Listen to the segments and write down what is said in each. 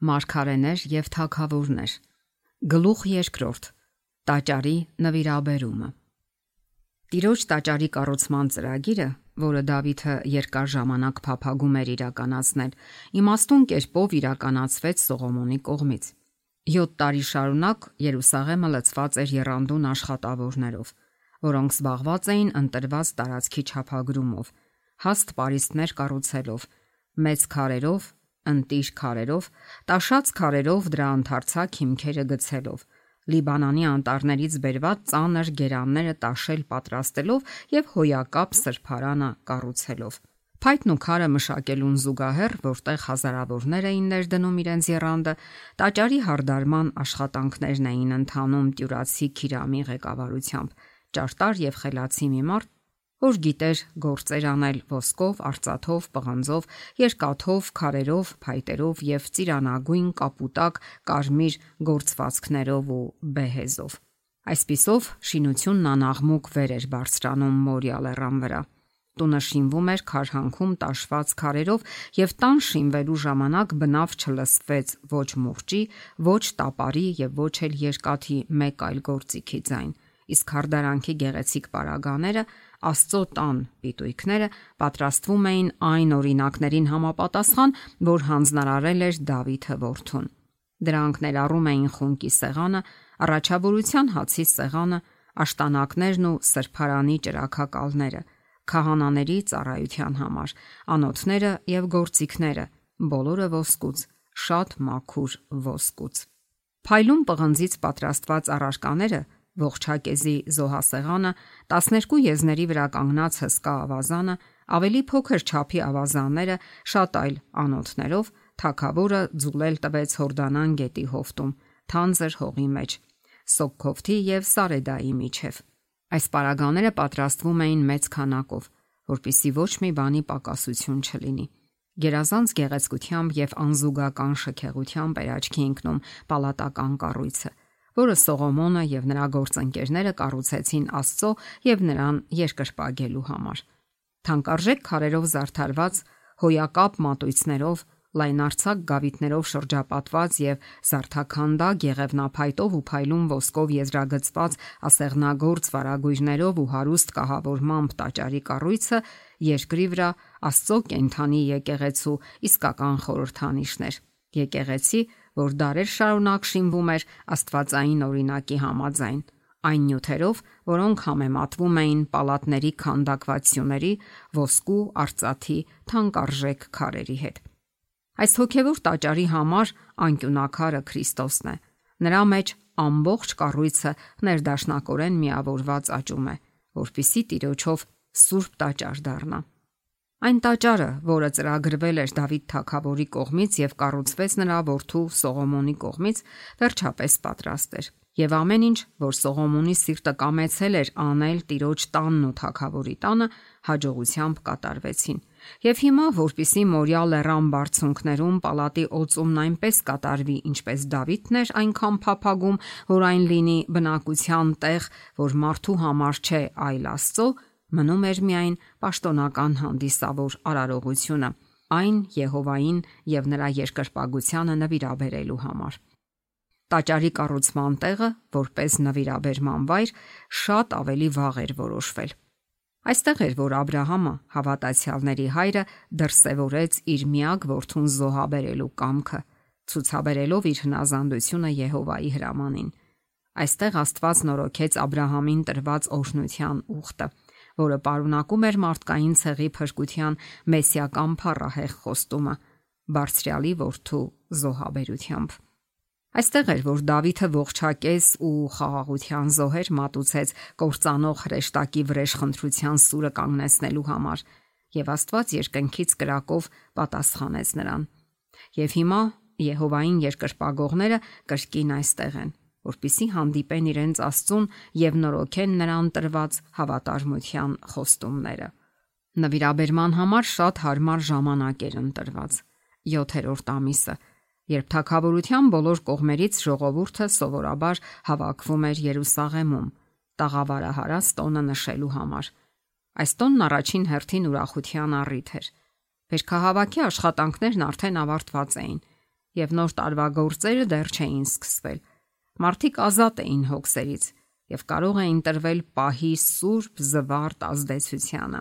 Մարգարեներ եւ թագավորներ։ Գլուխ երկրորդ. Տաճարի նվիրաբերումը։ Տիրոջ տաճարի կառուցման ծրագիրը, որը Դավիթը երկար ժամանակ փափագում էր իրականացնել, իմաստուն կերպով իրականացվեց Սողոմոնի կողմից։ 7 տարի շարունակ Երուսաղեմը լցված էր եռանդուն աշխատավորներով, որոնք զբաղված էին ընտրված տարածքի չափագրումով, հաստ պարիսպներ կառուցելով, մեծ քարերով, ընտիր քարերով, տաշած քարերով դրա ընդարձակ հիմքերը գցելով, Լիբանանի անտառներից բերված ծանր գերանները տաշել պատրաստելով եւ հոյակապ սրբարանը կառուցելով։ Փայտն ու քարը մշակելուն զուգահեռ, որտեղ հազարավորներ էին ներդնում իրենց եռանդը, տաճարի հարդարման աշխատանքներն էին ընթանում Տյուրացի Քիրամի ղեկավարությամբ, ճարտար եւ խելացի մի մարդ, որ գիտեր գործեր անել ոսկով, արծաթով, պղնձով, երկաթով, քարերով, փայտերով եւ ծիրանագույն, կապուտակ, կարմիր գործվածքներով ու բեհեզով։ Այսպիսով շինությունն անաղմուկ վեր էր բարձրանում Մորիա լեռան վրա։ Տունը շինվում էր քարհանքում տաշված քարերով եւ տան շինվելու ժամանակ բնավ չլսվեց ոչ մուրճի, ոչ տապարի եւ ոչ էլ երկաթի մեկ այլ գործիքի ձայն։ Իսկ հարդարանքի գեղեցիկ պարագաները, Աստծո տան պիտույքները պատրաստվում էին այն օրինակներին համապատասխան, որ հանձնարարել էր Դավիթը որդուն։ Դրանք ներառում էին խունկի սեղանը, առաջավորության հացի սեղանը, աշտանակներն ու սրբարանի ճրագակալները, քահանաների ծառայության համար, անոթները եւ գործիքները, բոլորը ոսկուց, շատ մաքուր ոսկուց։ Փայլուն պղնձից պատրաստված առարկաները, ողջակեզի զոհասեղանը, 12 եզների վրա կանգնած հսկա ավազանը, ավելի փոքր չափի ավազանները, շատ այլ անոթներով թագավորը ձուլել տվեց Հորդանան գետի հովտում, թանձր հողի մեջ, Սոկքովթի եւ Սարեդայի միջև։ Այս պարագաները պատրաստվում էին մեծ քանակով, որpիսի ոչ մի բանի պակասություն չլինի։ Գերազանց գեղեցկությամբ եւ անզուգական շքեղությամբ էր աչքի ընկնում պալատական կառույցը, որը Սողոմոնը եւ նրա գործընկերները կառուցեցին Աստծո եւ նրան երկրպագելու համար։ Թանկարժեք քարերով զարդարված, հոյակապ մատույցներով, լայնարձակ գավիթներով շրջապատված եւ զարդաքանդակ եղևնափայտով ու փայլուն ոսկով եզրագծված ասեղնագործ վարագույրներով ու հարուստ կահավորմամբ տաճարի կառույցը երկրի վրա Աստծո կենթանի եկեղեցու իսկական խորհրդանիշներ։ Եկեղեցի, որ դարեր շարունակ շինվում էր աստվածային օրինակի համաձայն, այն նյութերով, որոնք համեմատվում էին պալատների քանդակվածությունների, ոսկու, արծաթի, թանկարժեք քարերի հետ։ Այս հոգևոր տաճարի համար անկյունակարը Քրիստոսն է։ Նրա մեջ ամբողջ կառույցը ներդաշնակորեն միավորված աճում է, որpիսի Տիրոջով սուրբ տաճար դառնա։ Այն տաճարը, որը ծրագրվել էր Դավիթ թագավորի կողմից եւ կառուցվեց նրա որդու Սողոմոնի կողմից, վերջապես պատրաստ էր։ Եվ ամեն ինչ, որ Սողոմոնի սիրտը կամեցել էր անել Տիրոջ տանն ու թագավորի տանը, հաջողությամբ կատարվեցին։ Եվ հիմա, որpիսի Մորիա լեռան բարձունքներում պալատի օծումն այնպես կատարվի, ինչպես Դավիթն էր այնքան փափագում, որ այն լինի բնակության տեղ, որ մարդու համար չէ, այլ Աստծո, մնում էր միայն պաշտոնական հանդիսավոր արարողությունը, այն Եհովային եւ նրա երկրպագությանը նվիրաբերելու համար։ Տաճարի կառուցման տեղը, որպես նվիրաբերման վայր, շատ ավելի վաղ էր որոշվել։ Այստեղ էր, որ Աբ รา համը, հավատացյալների հայրը, դրսևորեց իր միակ որդուն զոհաբերելու կամքը, ցուցաբերելով իր հնազանդությունը Եհովայի հրամանին։ Այստեղ Աստված նորոգեց Աբ รา համին տրված օրհնության ուխտը, որը պարունակում էր մարդկային ցեղի փրկության մեսիական փառահեղ խոստումը Բարձրյալի որդու զոհաբերությամբ։ Այստեղ էր, որ Դավիթը ողջակեզ ու խաղաղության զոհեր մատուցեց կործանող հրեշտակի վրեժխնդրության սուրը կանգնեցնելու համար, եւ Աստված երկնքից կրակով պատասխանեց նրան։ Եվ հիմա Եհովային երկրպագողները կրկին այստեղ են, որպիսի հանդիպեն իրենց Աստծուն եւ նորոգեն նրան տրված հավատարմության խոստումները։ Նվիրաբերման համար շատ հարմար ժամանակ էր ընտրված՝ 7-րդ ամիսը, երբ թագավորության բոլոր կողմերից ժողովուրդը սովորաբար հավաքվում էր Երուսաղեմում, տաղավարահարած տոնը նշելու համար։ Այս տոնն առաջին հերթին ուրախության առիթ էր։ Վերքահավաքի աշխատանքներն արդեն ավարտված էին, եւ նոր տարվա գործերը դեռ չէին սկսվել։ Մարդիկ ազատ էին հոգսերից եւ կարող էին տրվել պահի սուրբ զվարթ ազդեցությանը։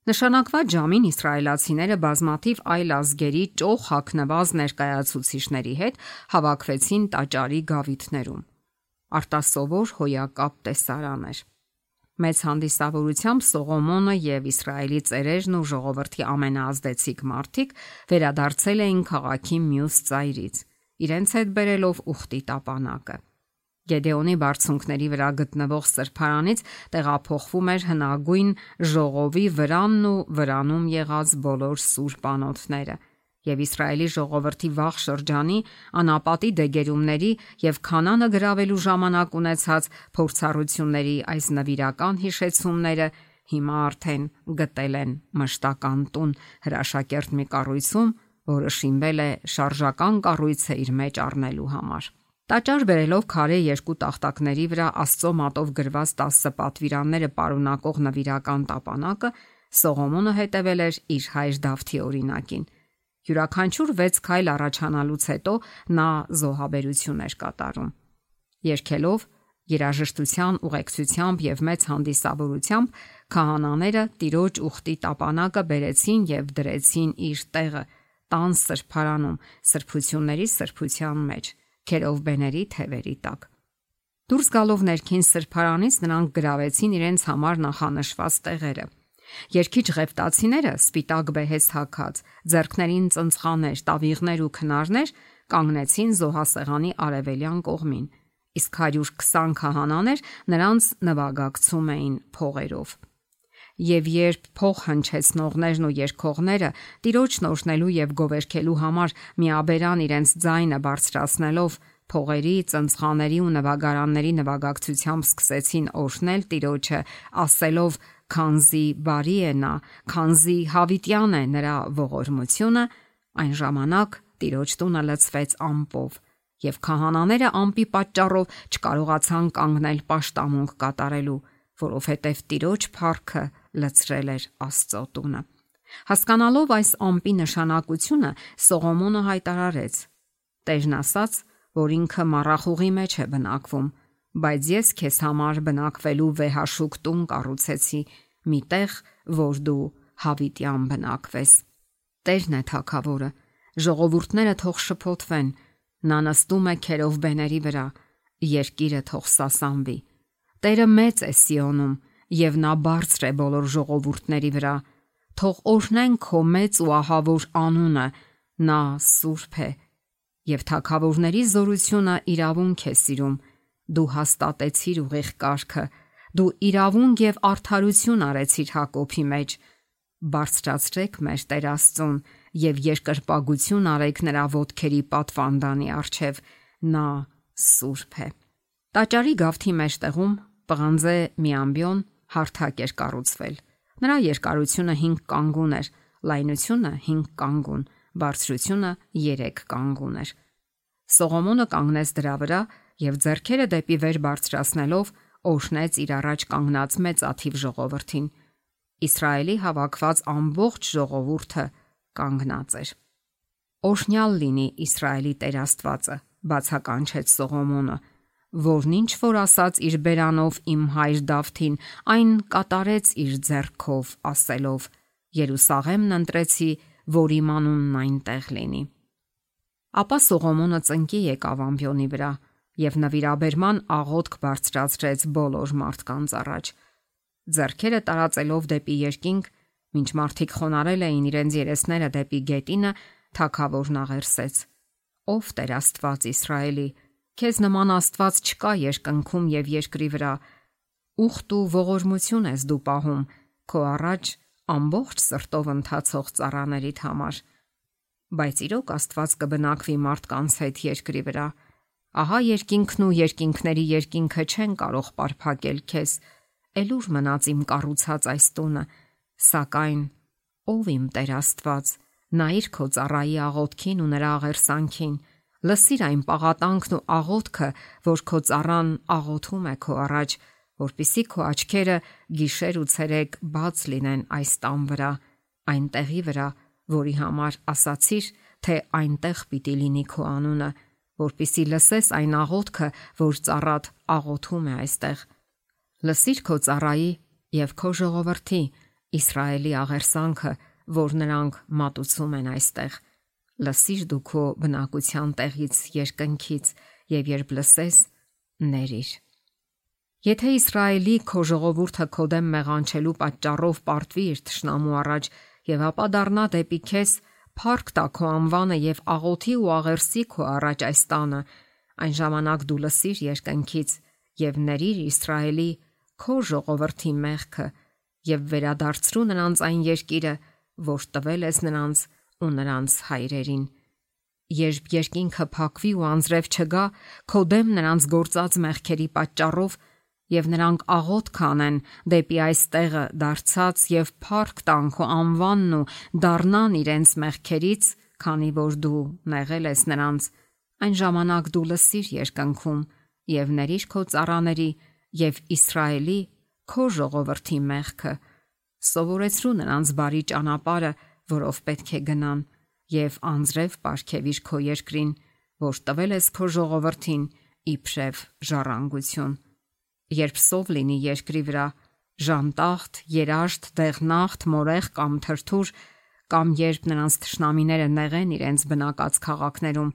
Նշանակված ժամին իսրայելացիները բազմաթիվ այլ ազգերի ճոխ հագնված ներկայացուցիչների հետ հավաքվեցին տաճարի գավիթներում։ Արտասովոր հոյակապ տեսարան էր։ Մեծ հանդիսավորությամբ Սողոմոնը եւ Իսրայելի ծերերն ու ժողովրդի ամենաազդեցիկ մարդիկ վերադարձել էին քաղաքի մյուս ծայրից, իրենց հետ բերելով ուխտի տապանակը։ Գեդեոնի բարձունքների վրա գտնվող սրբարանից տեղափոխվում էր հնագույն ժողովի վրանն ու վրանում եղած բոլոր սուրբ անոթները, եւ Իսրայելի ժողովրդի վաղ շրջանի անապատի դեգերումների եւ Քանանը գրավելու ժամանակ ունեցած փորձառությունների այս նվիրական հիշեցումները հիմա արդեն գտել են մշտական տուն հրաշակերտ մի կառույցում, որը շինվել է շարժական կառույցը իր մեջ առնելու համար։ Տաճար բերելով քարե երկու տախտակների վրա Աստծո մատով գրված 10 պատվիրանները պարունակող նվիրական տապանակը Սողոմոնը հետևել էր իր հայր Դավթի օրինակին։ Յուրաքանչյուր 6 քայլ առաջանալուց հետո նա զոհաբերություն էր կատարում։ Երգելով երաժշտության ուղեկցությամբ եւ մեծ հանդիսավորությամբ քահանաները տիրոջ ուխտի տապանակը բերեցին եւ դրեցին իր տեղը տան սրբարանում, սրբությունների սրբության մեջ, քերովբեների թևերի տակ։ Դուրս գալով ներքին սրբարանից նրանք գրավեցին իրենց համար նախանշված տեղերը։ Երկիչ ղևտացիները սպիտակ բեհես հագած, ձեռքներին ծնցղաներ, տավիղներ ու քնարներ կանգնեցին զոհասեղանի արևելյան կողմին, իսկ 120 քահանաներ նրանց նվագակցում էին փողերով։ Եվ երբ փող հնչեցնողներն ու երգողները Տիրոջն օրհնելու եւ գովերքելու համար միաբերան իրենց ձայնը բարձրացնելով փողերի, ծնցղաների ու նվագարանների նվագակցությամբ սկսեցին օրհնել Տիրոջը, ասելով. «Քանզի բարի է նա, քանզի հավիտյան է նրա ողորմությունը», այն ժամանակ Տիրոջ տունը լցվեց ամպով, եւ քահանաները ամպի պատճառով չկարողացան կանգնել պաշտամունք կատարելու, որովհետև Տիրոջ փառքը լցրել էր Աստծո տունը։ Հասկանալով այս ամպի նշանակությունը, Սողոմոնը հայտարարեց. «Տերն ասաց, որ ինքը մառախուղի մեջ է բնակվում, բայց ես քեզ համար բնակվելու վեհաշուկ տուն կառուցեցի, մի տեղ, որ դու հավիտյան բնակվես»։ Տերն է թագավորը, ժողովուրդները թող շփոթվեն, նա նստում է քերովբեների վրա, երկիրը թող սասանվի։ Տերը մեծ է Սիոնում, եւ նա բարձր է բոլոր ժողովուրդների վրա, թող օրհնեն քո մեծ ու ահավոր անունը, նա սուրբ է, եւ թագավորների զորությունը իրավունք է սիրում, դու հաստատեցիր ուղիղ կարգը, դու իրավունք եւ արդարություն արեցիր Հակոբի մեջ, բարձրացրեք մեր Տեր Աստծուն եւ երկրպագություն արեք նրա ոտքերի պատվանդանի առջև, նա սուրբ է։ Տաճարի գավթի մեջտեղում պղանձե մի ամբիոն հարթակ էր կառուցվել։ Նրա երկարությունը 5 կանգուն էր, լայնությունը 5 կանգուն, բարձրությունը 3 կանգուն էր։ Սողոմոնը կանգնեց դրա վրա եւ ձեռքերը դեպի վեր բարձրացնելով օրհնեց իր առաջ կանգնած մեծ աթիվ ժողովրդին։ Իսրայելի հավաքված ամբողջ ժողովուրդը կանգնած էր։ Օրհնյալ լինի Իսրայելի Տեր Աստվածը, բացականչեց Սողոմոնը, որն ինչ որ ասաց իր բերանով իմ հայր Դավթին, այն կատարեց իր ձեռքով, ասելով. Երուսաղեմն ընտրեցի, որ իմ անունն այնտեղ լինի։ Ապա Սողոմոնը ծնկի եկավ ամբիոնի վրա եւ նվիրաբերման աղոթք բարձրացրեց բոլոր մարդկանց առաջ։ Ձեռքերը տարածելով դեպի երկինք, մինչ մարդիկ խոնարել էին իրենց երեսները դեպի գետինը, թագավորն աղերսեց. Ով Տեր Աստված Իսրայելի, քեզ նման Աստված չկա երկնքում եւ երկրի վրա, ուխտ ու ողորմություն ես դու պահում քո առաջ ամբողջ սրտով ընթացող ծառաներիդ համար։ Բայց իրոք Աստված կբնակվի մարդկանց հետ երկրի վրա։ Ահա երկինքն ու երկինքների երկինքը չեն կարող պարփակել քեզ, Էլուր մնաց իմ կառուցած այս տունը, սակայն ով իմ Տեր Աստված, նայիր քո ծառայի աղոթքին ու նրա աղերսանքին, լսիր այն պաղատանքն ու աղոթքը, որ քո ծառան աղոթում է քո առաջ, որպիսի քո աչքերը գիշեր ու ցերեկ բաց լինեն այս տան վրա, այն տեղի վրա, որի համար ասացիր, թե այնտեղ պիտի լինի քո անունը, որպիսի լսես այն աղոթքը, որ ծառատ աղոթում է այստեղ։ Լսիր քո ծառայի եւ քո ժողովրդի Իսրայելի աղերսանքը, որ նրանք մատուցում են այստեղ։ Լսիր դու քո բնակության տեղից երկնքից եւ երբ լսես, ների՛ր։ Եթե Իսրայելի քո ժողովուրդը քո դեմ մեղանչելու պատճառով պարտվի իր թշնամու առաջ եւ ապա դառնա դեպի քեզ, փառք տա քո անվանը եւ աղոթի ու աղերսի քո առաջ այս տանը, այն ժամանակ դու լսիր երկնքից եւ ների՛ր Իսրայելի քո ժողովրդի մեղքը եւ վերադարձրու նրանց այն երկիրը, որ տվել ես նրանց ու նրանց հայրերին։ Երբ երկինքը փակվի ու անձրև չգա, քո դեմ նրանց գործած մեղքերի պատճառով եւ նրանք աղոթ կանեն դեպի այս տեղը դարձած եւ փառք տան քո անվանն ու դառնան իրենց մեղքերից, քանի որ դու նեղել ես նրանց, այն ժամանակ դու լսիր երկնքում եւ ների՛ր քո ծառաների եւ Իսրայելի քո ժողովրդի մեղքը, սովորեցրու նրանց բարի ճանապարհը, որով պետք է գնան, եւ անձրև պարգևիր քո երկրին, որ տվել ես քո ժողովրդին իբրև ժառանգություն։ Երբ սով լինի երկրի վրա, ժանտախտ, երաշտ, դեղնախտ, մորեղ կամ թրթուր, կամ երբ նրանց թշնամիները նեղեն իրենց բնակած քաղաքներում,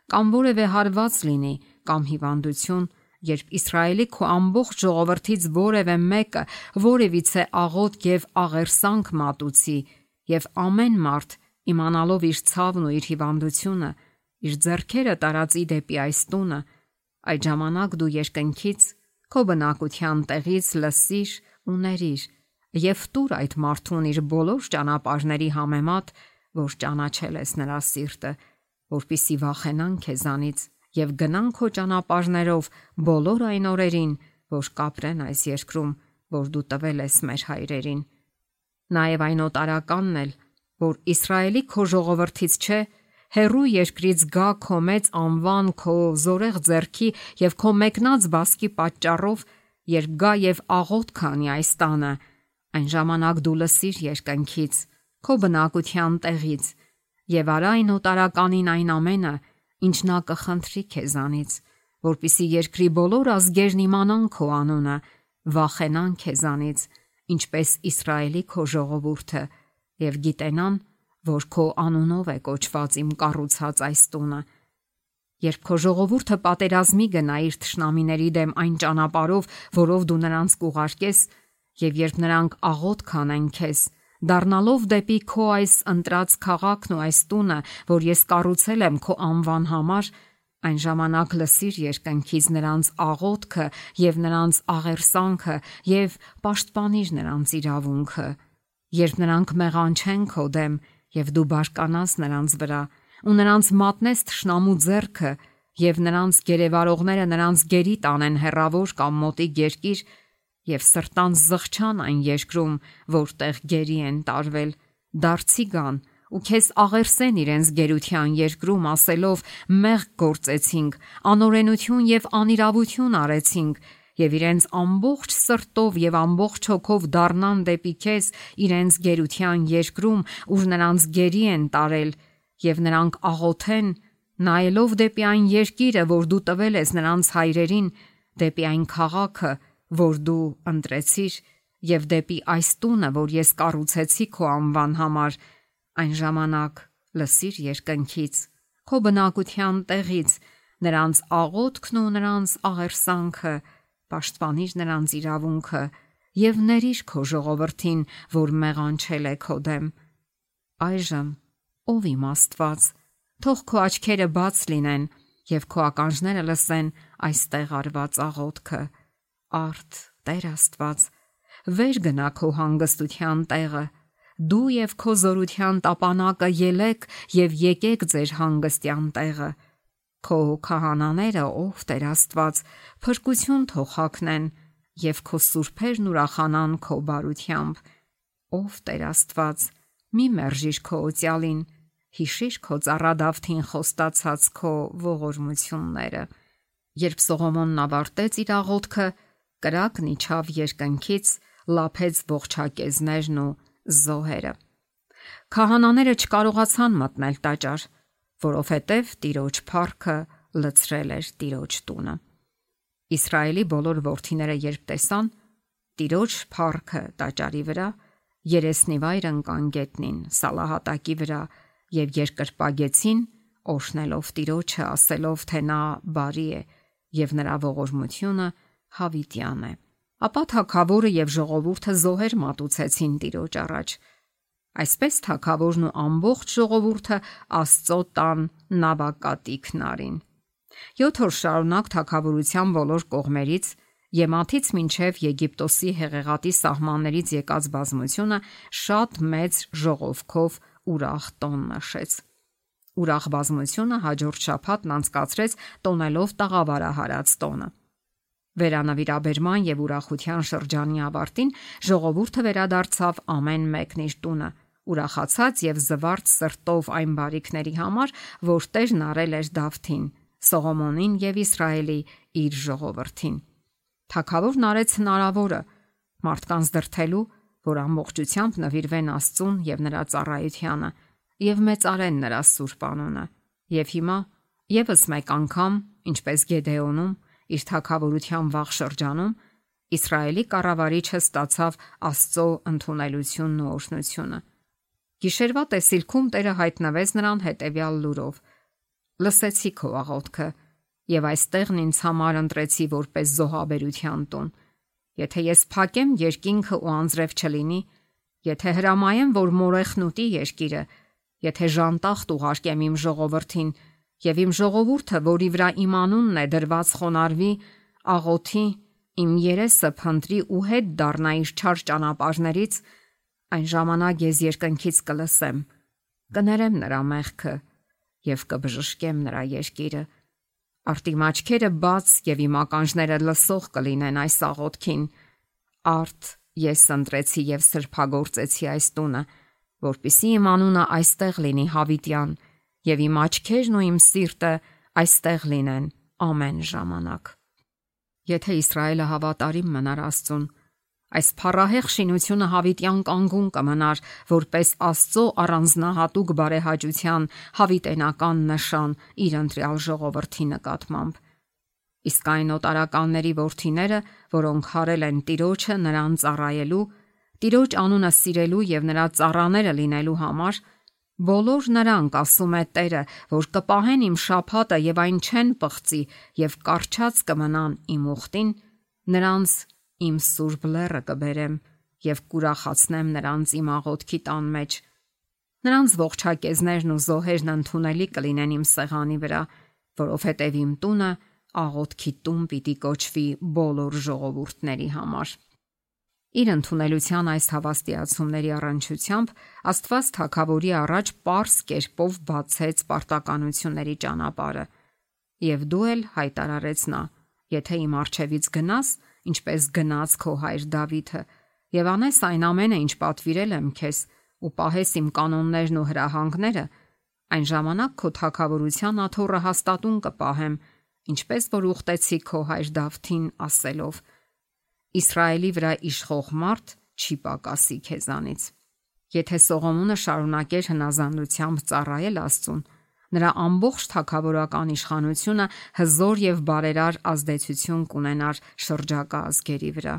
կամ որևէ հարված լինի, կամ հիվանդություն, երբ Իսրայելի քո ամբողջ ժողովրդից որևէ մեկը որևիցե աղոթք եւ աղերսանք մատուցի, եւ ամեն մարդ իմանալով իր ցավն ու իր հիվանդությունը, իր ձեռքերը տարածի դեպի այս տունը, այդ ժամանակ դու երկնքից քո բնակության տեղից լսիր ու ների՛ր եւ տուր այդ մարդուն իր բոլոր ճանապարհների համեմատ, որ ճանաչել ես նրա սիրտը, որպիսի վախենան քեզանից եւ գնան քո ճանապարհներով բոլոր այն օրերին, որ կապրեն այս երկրում, որ դու տվել ես մեր հայրերին։ Նաեւ այն օտարականն էլ, որ Իսրայելի քո ժողովրդից չէ, հերու երկրից գա քո մեծ անվան, քո զորեղ ձեռքի եւ քո մեկնած բասկի պատճառով, երբ գա եւ աղոթ քանի այս տանը, այն ժամանակ դու լսիր երկնքից, քո բնակության տեղից եւ արա այն օտարականին այն ամենը, ինչ նա կխնդրի քեզանից, որպիսի երկրի բոլոր ազգերն իմանան քո անունը, վախենան քեզանից, ինչպես Իսրայելի քո ժողովուրդը, եւ գիտենան, որ քո անունով է կոչված իմ կառուցած այս տունը։ Երբ քո ժողովուրդը պատերազմի գնա իր թշնամիների դեմ այն ճանապարհով, որով դու նրանց կուղարկես, եւ երբ նրանք աղոթ կանեն քեզ, դառնալով դեպի քո այս ընտրած քաղաքն ու այս տունը, որ ես կառուցել եմ քո անվան համար, այն ժամանակ լսիր երկնքից նրանց աղոթքը եւ նրանց աղերսանքը եւ պաշտպանիր նրանց իրավունքը։ Երբ նրանք մեղանչեն քո դեմ եւ դու բարկանաս նրանց վրա ու նրանց մատնես թշնամու ձեռքը եւ նրանց գերեվարողները նրանց գերի տանեն հեռավոր կամ մոտիկ երկիր եւ սրտանց զղջան այն երկրում, որտեղ գերի են տարվել, դարձի գան ու քեզ աղերսեն իրենց գերության երկրում, ասելով մեղք գործեցինք, անօրենություն եւ անիրավություն արեցինք, եւ իրենց ամբողջ սրտով եւ ամբողջ հոգով դառնան դեպի քեզ իրենց գերության երկրում, ուր նրանց գերի են տարել, եւ նրանք աղոթեն, նայելով դեպի այն երկիրը, որ դու տվել ես նրանց հայրերին, դեպի այն քաղաքը, որ դու ընտրեցիր, եւ դեպի այս տունը, որ ես կառուցեցի քո անվան համար, այն ժամանակ լսիր երկնքից, քո բնակության տեղից, նրանց աղոթքն ու նրանց աղերսանքը, պաշտպանիր նրանց իրավունքը եւ ների՛ր քո ժողովրդին, որ մեղանչել է քո դեմ։ Այժմ, ով իմ Աստված, թող քո աչքերը բաց լինեն եւ քո ականջները լսեն այստեղ արված աղոթքը։ Արդ, Տեր Աստված, վեր գնա քո հանգստության տեղը, դու եւ քո զորության տապանակը ելեք եւ եկեք ձեր հանգստյան տեղը։ Քո քահանաները, ով Տեր Աստված, փրկություն թող հագնեն եւ քո սուրբերն ուրախանան քո բարությամբ։ Ով Տեր Աստված, մի մերժիր քո օծյալին, հիշիր քո ծառա Դավթին խոստացած քո ողորմությունները։ Երբ Սողոմոնն ավարտեց իր աղոթքը, կրակն իջավ երկնքից, լափեց ողջակեզներն ու զոհերը։ Քահանաները չկարողացան մտնել տաճար, որովհետև Տիրոջ փառքը լցրել էր Տիրոջ տունը։ Իսրայելի բոլոր որդիները երբ տեսան Տիրոջ փառքը տաճարի վրա, երեսնիվայր ընկան գետնին Սալահատակի վրա եւ երկրպագեցին, օշնելով Տիրոջը, ասելով, թե նա բարի է եւ նրա ողորմությունը հավիտյան է։ Ապա թագավորը եւ ժողովուրդը զոհեր մատուցեցին Տիրոջ առաջ։ Այսպես թագավորն ու ամբողջ ժողովուրդը Աստծո տան նավակատիքն արին։ 7 օր շարունակ թագավորության բոլոր կողմերից Եմաթից մինչև Եգիպտոսի հեղեղատի սահմաններից եկած բազմությունը շատ մեծ ժողովքով ուրախ տոն նշեց։ Ուրախ բազմությունը հաջորդ շաբաթն անցկացրեց տոնելով տաղավարահարած տոնը։ Վերանավիրաբերման եւ ուրախության շրջանի ավարտին ժողովուրդը վերադարձավ ամեն մեկն իր տունը, ուրախացած եւ զվարթ սրտով այն բարիքների համար, որ Տերն արել էր Դավթին, Սողոմոնին եւ Իսրայելի իր ժողովրդին։ Թագավորն արեց հնարավորը մարդկանց դրթելու, որ ամբողջությամբ նվիրվեն Աստծուն եւ նրա ծառայությանը եւ մեծարեն նրա սուրբ անունը։ Եվ հիմա եւս մեկ անգամ, ինչպես Գեդեոնում, իր թագավորության վաղ շրջանում Իսրայելի կառավարիչը ստացավ Աստծո ընդունելությունն ու օրհնությունը։ Գիշերվա տեսիլքում Տերը հայտնվեց նրան հետևյալ լուրով. «Լսեցի քո աղոթքը, եւ այստեղն ինձ համար ընտրեցի որպես զոհաբերության տուն։ Եթե ես փակեմ երկինքը ու անձրև չլինի, եթե հրամայեմ, որ մորեխն ուտի երկիրը, եթե ժանտախտ ուղարկեմ իմ ժողովրդին, եւ իմ ժողովուրդը, որի վրա իմ անունն է դրված, խոնարհվի, աղոթի, իմ երեսը փնտրի ու հետ դառնա իր չար ճանապարհներից, այն ժամանակ ես երկնքից կլսեմ, կներեմ նրա մեղքը եւ կբժշկեմ նրա երկիրը։ Արդ իմ աչքերը բաց եւ իմ ականջները լսող կլինեն այս աղոթքին։ Արդ ես ընտրեցի եւ սրբագործեցի այս տունը, որպիսի իմ անունը այստեղ լինի հավիտյան եւ իմ աչքերն ու իմ սիրտը այստեղ լինեն ամեն ժամանակ»։ Եթե Իսրայելը հավատարիմ մնար Աստծուն, այս փառահեղ շինությունը հավիտյան կանգուն կմնար որպես Աստծո առանձնահատուկ բարեհաճության հավիտենական նշան իր ընտրյալ ժողովրդի նկատմամբ։ Իսկ այն օտարականների որդիները, որոնք հարել են Տիրոջը նրան ծառայելու, Տիրոջ անունը սիրելու եւ նրա ծառաները լինելու համար, բոլոր նրանք, ասում է Տերը, որ կպահեն իմ շաբաթը եւ այն չեն պղծի եւ կարճած կմնան իմ ուխտին, նրանց իմ սուրբ լեռը կբերեմ եւ կուրախացնեմ նրանց իմ աղոթքի տան մեջ։ Նրանց ողջակեզներն ու զոհերն ընդունելի կլինեն իմ սեղանի վրա, որովհետեւ իմ տունը աղոթքի տուն պիտի կոչվի բոլոր ժողովուրդների համար։ Իր ընդունելության այս հավաստիացումների առնչությամբ Աստված թագավորի առաջ պարզ կերպով բացեց պարտականությունների ճանապարհը։ Եվ դու էլ հայտարարեց նա. եթե իմ առջևից գնաս, ինչպես գնաց քո հայր Դավիթը, եւ անես այն ամենը, ինչ պատվիրել եմ քեզ, ու պահես իմ կանոններն ու հրահանգները, այն ժամանակ քո թագավորության աթոռը հաստատուն կպահեմ, ինչպես որ ուխտեցի քո հայր Դավթին, ասելով. Իսրայելի վրա իշխող մարդ չի պակասի քեզանից։ Եթե Սողոմոնը շարունակեր հնազանդությամբ ծառայել Աստծուն, նրա ամբողջ թագավորական իշխանությունը հզոր եւ բարերար ազդեցություն կունենար շրջակա ազգերի վրա,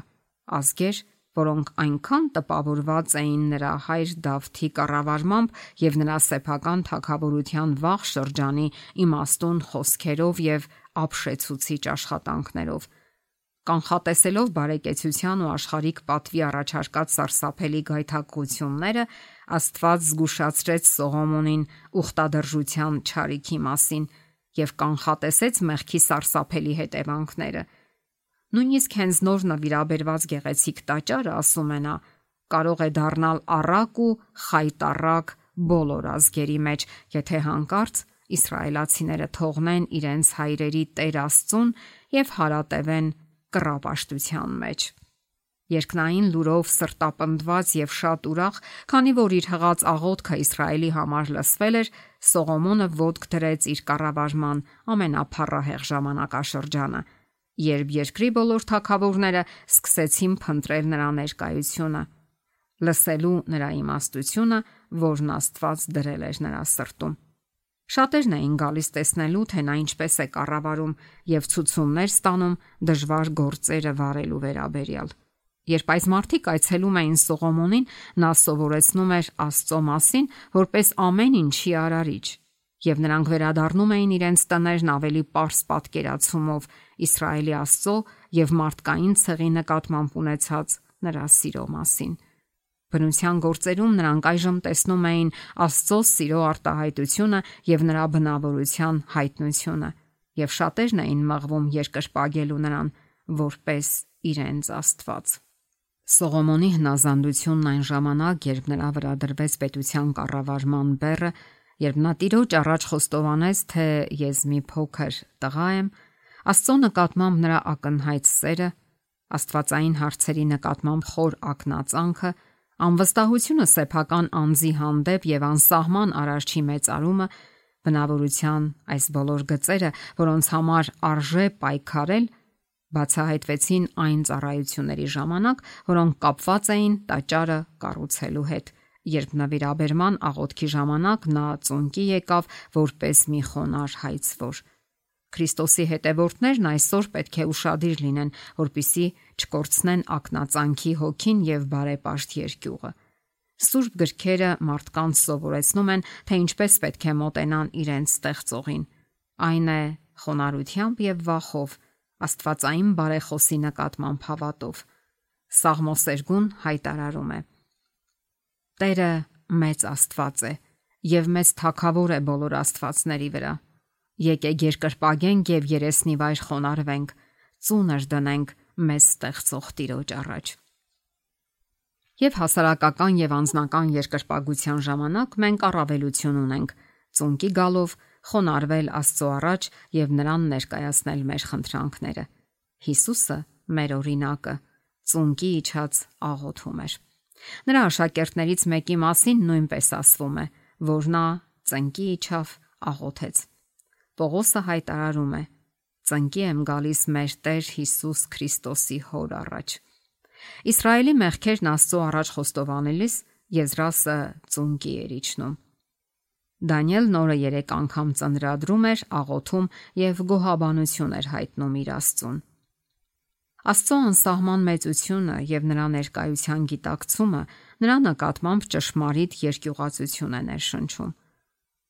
ազգեր, որոնք այնքան տպավորված էին նրա հայր Դավթի կառավարմամբ եւ նրա սեփական թագավորության վաղ շրջանի իմաստուն խոսքերով եւ ապշեցուցիչ աշխատանքներով։ Կանխատեսելով բարեկեցության ու աշխարհիկ պատվի առաջարկած սարսափելի գայթակղությունները, Աստված զգուշացրեց Սողոմոնին ուխտադրժության չարիքի մասին եւ կանխատեսեց մեղքի սարսափելի հետևանքները։ Նույնիսկ հենց նոր նվիրաբերված գեղեցիկ տաճարը, ասում է նա, կարող է դառնալ առակ ու խայտառակ բոլոր ազգերի մեջ, եթե հանկարծ իսրայելացիները թողնեն իրենց հայրերի Տեր Աստծուն եւ հարատևեն կռապաշտության մեջ։ Երկնային լուրով սրտապնդված եւ շատ ուրախ, քանի որ իր հղած աղոթքը Իսրայելի համար լսվել էր, Սողոմոնը ոտք դրեց իր կառավարման ամենափառահեղ ժամանակաշրջանը, երբ երկրի բոլոր թագավորները սկսեցին փնտրել նրա ներկայությունը, լսելու նրա իմաստությունը, որն Աստված դրել էր նրա սրտում։ Շատերն էին գալիս տեսնելու, թե նա ինչպես է կառավարում եւ ցուցումներ ստանում դժվար գործերը վարելու վերաբերյալ։ Երբ այս մարդիկ այցելում էին Սողոմոնին, նա սովորեցնում էր Աստծո մասին, որպես ամեն ինչի արարիչ, եւ նրանք վերադառնում էին իրենց տներն ավելի պարզ պատկերացումով Իսրայելի Աստծո եւ մարդկային ցեղի նկատմամբ ունեցած նրա սիրո մասին։ Բնության գործերում նրանք այժմ տեսնում էին Աստծո սիրո արտահայտությունը եւ նրա բնավորության հայտնությունը, եւ շատերն էին մղվում երկրպագելու նրան որպես իրենց Աստված։ Սողոմոնի հնազանդությունն այն ժամանակ, երբ նրա վրա դրվեց պետության կառավարման բեռը, երբ նա Տիրոջ առաջ խոստովանեց, թե ես մի փոքր տղա եմ, Աստծո նկատմամբ նրա ակնհայտ սերը, աստվածային հարցերի նկատմամբ խոր ակնածանքը, անվստահությունը սեփական անձի հանդեպ եւ անսահման արարչի մեծարումը, բնավորության այս բոլոր գծերը, որոնց համար արժե պայքարել, բացահայտվեցին այն ծառայությունների ժամանակ, որոնք կապված էին տաճարը կառուցելու հետ, երբ նվիրաբերման աղոթքի ժամանակ նա ծունկի եկավ որպես մի խոնար հայցվոր։ Քրիստոսի հետևորդներն այսօր պետք է ուշադիր լինեն, որպիսի չկորցնեն ակնածանքի հոգին եւ բարեպաշտ երկյուղը։ Սուրբ գրքերը մարդկանց սովորեցնում են, թե ինչպես պետք է մոտենան իրենց ստեղծողին։ Այն է խոնարհությամբ եւ վախով, աստվածային բարեխոսի նկատմամբ հավատով։ Սաղմոսերգուն հայտարարում է. Տերը մեծ Աստված է եւ մեծ թագավոր է բոլոր աստվածների վրա։ Եկեք երկրպագենք եւ երեսնի վայր խոնարհվենք, ծունր դնենք մեզ ստեղծող Տիրոջ առաջ։ Եվ հասարակական եւ անձնական երկրպագության ժամանակ մենք առավելություն ունենք ծունկի գալով խոնարհվել Աստծո առաջ եւ նրան ներկայացնել մեր խնդրանքները։ Հիսուսը մեր օրինակը ծունկի իջած աղոթում էր։ Նրա աշակերտներից մեկի մասին նույնպես ասվում է, որ նա ծնկի իջավ աղոթեց։ Պողոսը հայտարարում է. ծնկի եմ գալիս մեր Տեր Հիսուս Քրիստոսի հոր առաջ։ Իսրայելի մեղքերն Աստծո առաջ խոստովանելիս Եզրասը ծունկի էր իջնում։ Դանիելն օրը 3 անգամ ծնրադրում էր, աղոթում եւ գոհաբանություն էր հայտնում իր Աստծուն։ Աստծո անսահման մեծությունը եւ նրա ներկայության գիտակցումը նրա նկատմամբ ճշմարիտ երկյուղացություն է ներշնչում։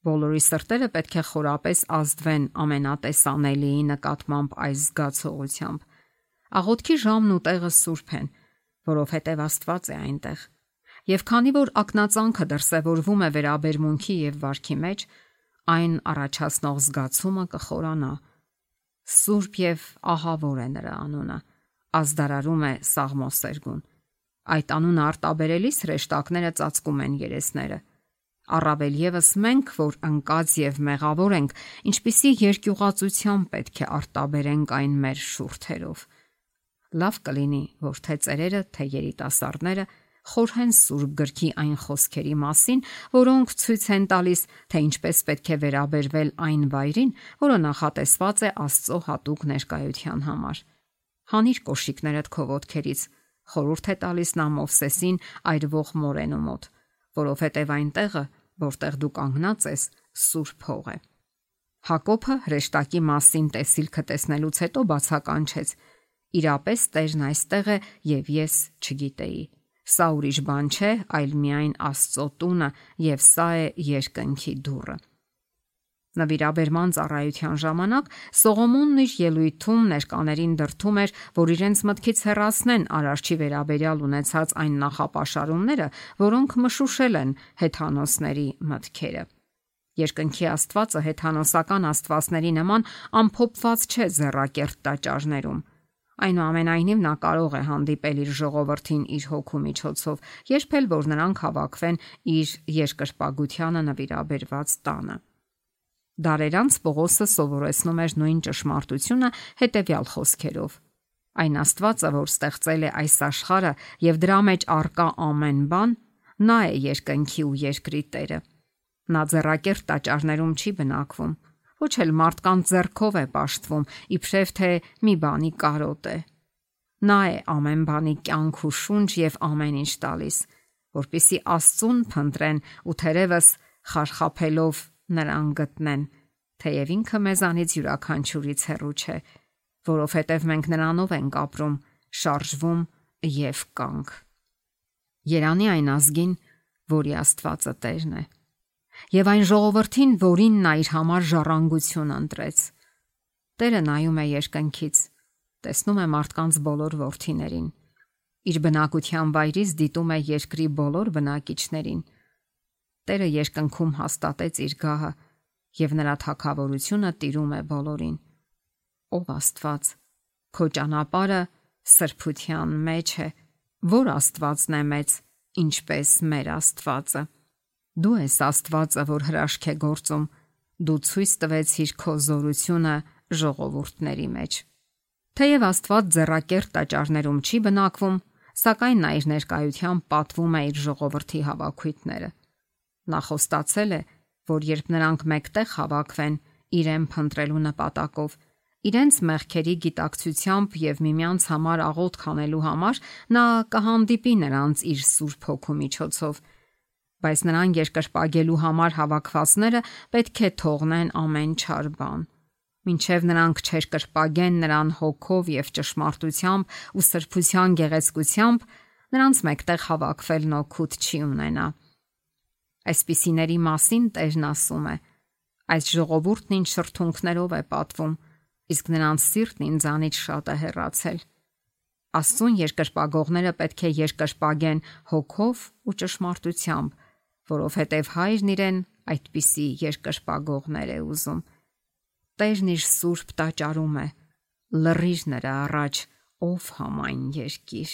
Բոլորի սրտերը պետք է խորապես ազդվեն ամենատեսանելիի նկատմամբ այս զգացողությամբ։ Աղոթքի ժամն ու տեղը սուրբ են, որովհետև Աստված է այնտեղ։ Եվ քանի որ ակնածանքը դրսևորվում է վերաբերմունքի եւ վարքի մեջ, այն առաջացնող զգացումը կխորանա։ Սուրբ եւ ահավոր է նրա անունը, ազդարարում է Սաղմոսերգուն։ Այդ անունը արտաբերելիս հրեշտակները ծածկում են երեսները։ Առավել եւս մենք, որ ընկած եւ մեղավոր ենք, ինչպիսի երկյուղացությամբ պետք է արտաբերենք այն մեր շուրթերով։ Լավ կլինի, որ թե ծերերը, թե երիտասարդները խորհեն Սուրբ գրքի այն խոսքերի մասին, որոնք ցույց են տալիս, թե ինչպես պետք է վերաբերվել այն վայրին, որը նախատեսված է Աստծո հատուկ ներկայության համար։ Հանիր կոշիկներդ քո ոտքերից, խորհուրդ է տալիս նա Մովսեսին այրվող մորենու մոտ, որովհետև այնտեղը, որտեղ դու կանգնած ես, սուրբ հող է։ Հակոբը հրեշտակի մասին տեսիլքը տեսնելուց հետո բացականչեց. իրապես Տերն այստեղ է եւ ես չգիտեի։ Սա ուրիշ բան չէ, այլ միայն Աստծո տունը եւ սա է երկնքի դուռը։ Նվիրաբերման ծառայության ժամանակ Սողոմոնն իր ելույթում ներկաներին դրթում էր, որ իրենց մտքից հեռացնեն արարչի վերաբերյալ ունեցած այն նախապաշարումները, որոնք մշուշել են հեթանոսների մտքերը։ Երկնքի Աստվածը հեթանոսական աստվածների նման ամփոփված չէ ձեռակերտ տաճարներում։ Այնուամենայնիվ նա կարող է հանդիպել իր ժողովրդին իր հոգու միջոցով, երբ էլ որ նրանք հավաքվեն իր երկրպագությանը նվիրաբերված տանը։ Դարեր անց Պողոսը սովորեցնում էր նույն ճշմարտությունը հետևյալ խոսքերով. այն Աստվածը, որ ստեղծել է այս աշխարհը եւ դրա մեջ առկա ամեն բան, նա է երկնքի ու երկրի Տերը։ Նա ձեռակերտ տաճարներում չի բնակվում, ոչ էլ մարդկանց ձեռքով է պաշտվում, իբրև թե մի բանի կարոտ է։ Նա է ամեն բանի կյանք ու շունչ եւ ամեն ինչ տալիս, որպիսի Աստծուն փնտրեն ու թերևս խարխափելով նրան գտնեն, թեև ինքը մեզանից յուրաքանչյուրից հեռու չէ, որովհետև մենք նրանով ենք ապրում, շարժվում եւ կանք։ Երանի այն ազգին, որի Աստվածը Տերն է, եւ այն ժողովրդին, որին նա իր համար ժառանգություն ընտրեց։ Տերը նայում է երկնքից, տեսնում է մարդկանց բոլոր որդիներին, իր բնակության վայրից դիտում է երկրի բոլոր բնակիչներին։ Տերը երկնքում հաստատեց իր գահը եւ նրա թագավորությունը տիրում է բոլորին։ Ով Աստված, քո ճանապարհը սրբության մեջ է, որ Աստվածն է մեծ, ինչպես մեր Աստվածը։ Դու ես Աստվածը, որ հրաշք է գործում, դու ցույց տվեցիր քո զորությունը ժողովուրդների մեջ։ Թեև Աստված ձեռակերտ տաճարներում չի բնակվում, սակայն նա իր ներկայությամբ պատվում է իր ժողովրդի հավաքույթները։ Նա խոստացել է, որ երբ նրանք մեկտեղ հավաքվեն իրեն փնտրելու նպատակով, իրենց մեղքերի գիտակցությամբ եւ միմյանց համար աղոթք անելու համար, նա կհանդիպի նրանց իր Սուրբ Հոգու միջոցով, բայց նրան երկրպագելու համար հավաքվածները պետք է թողնեն ամեն չար բան։ Մինչև նրանք չերկրպագեն նրան հոգով եւ ճշմարտությամբ ու սրբության գեղեցկությամբ, նրանց մեկտեղ հավաքվելն օգուտ չի ունենա։ Այսպիսիների մասին Տերն ասում է. այս ժողովուրդն ինձ շրթունքներով է պատվում, իսկ նրանց սիրտն ինձանից շատ է հեռացել։ Աստծուն երկրպագողները պետք է երկրպագեն հոգով ու ճշմարտությամբ, որովհետև Հայրն իրեն այդպիսի երկրպագողներ է ուզում։ Տերն իր սուրբ տաճարում է, լռիր նրա առաջ, ով համայն երկիր։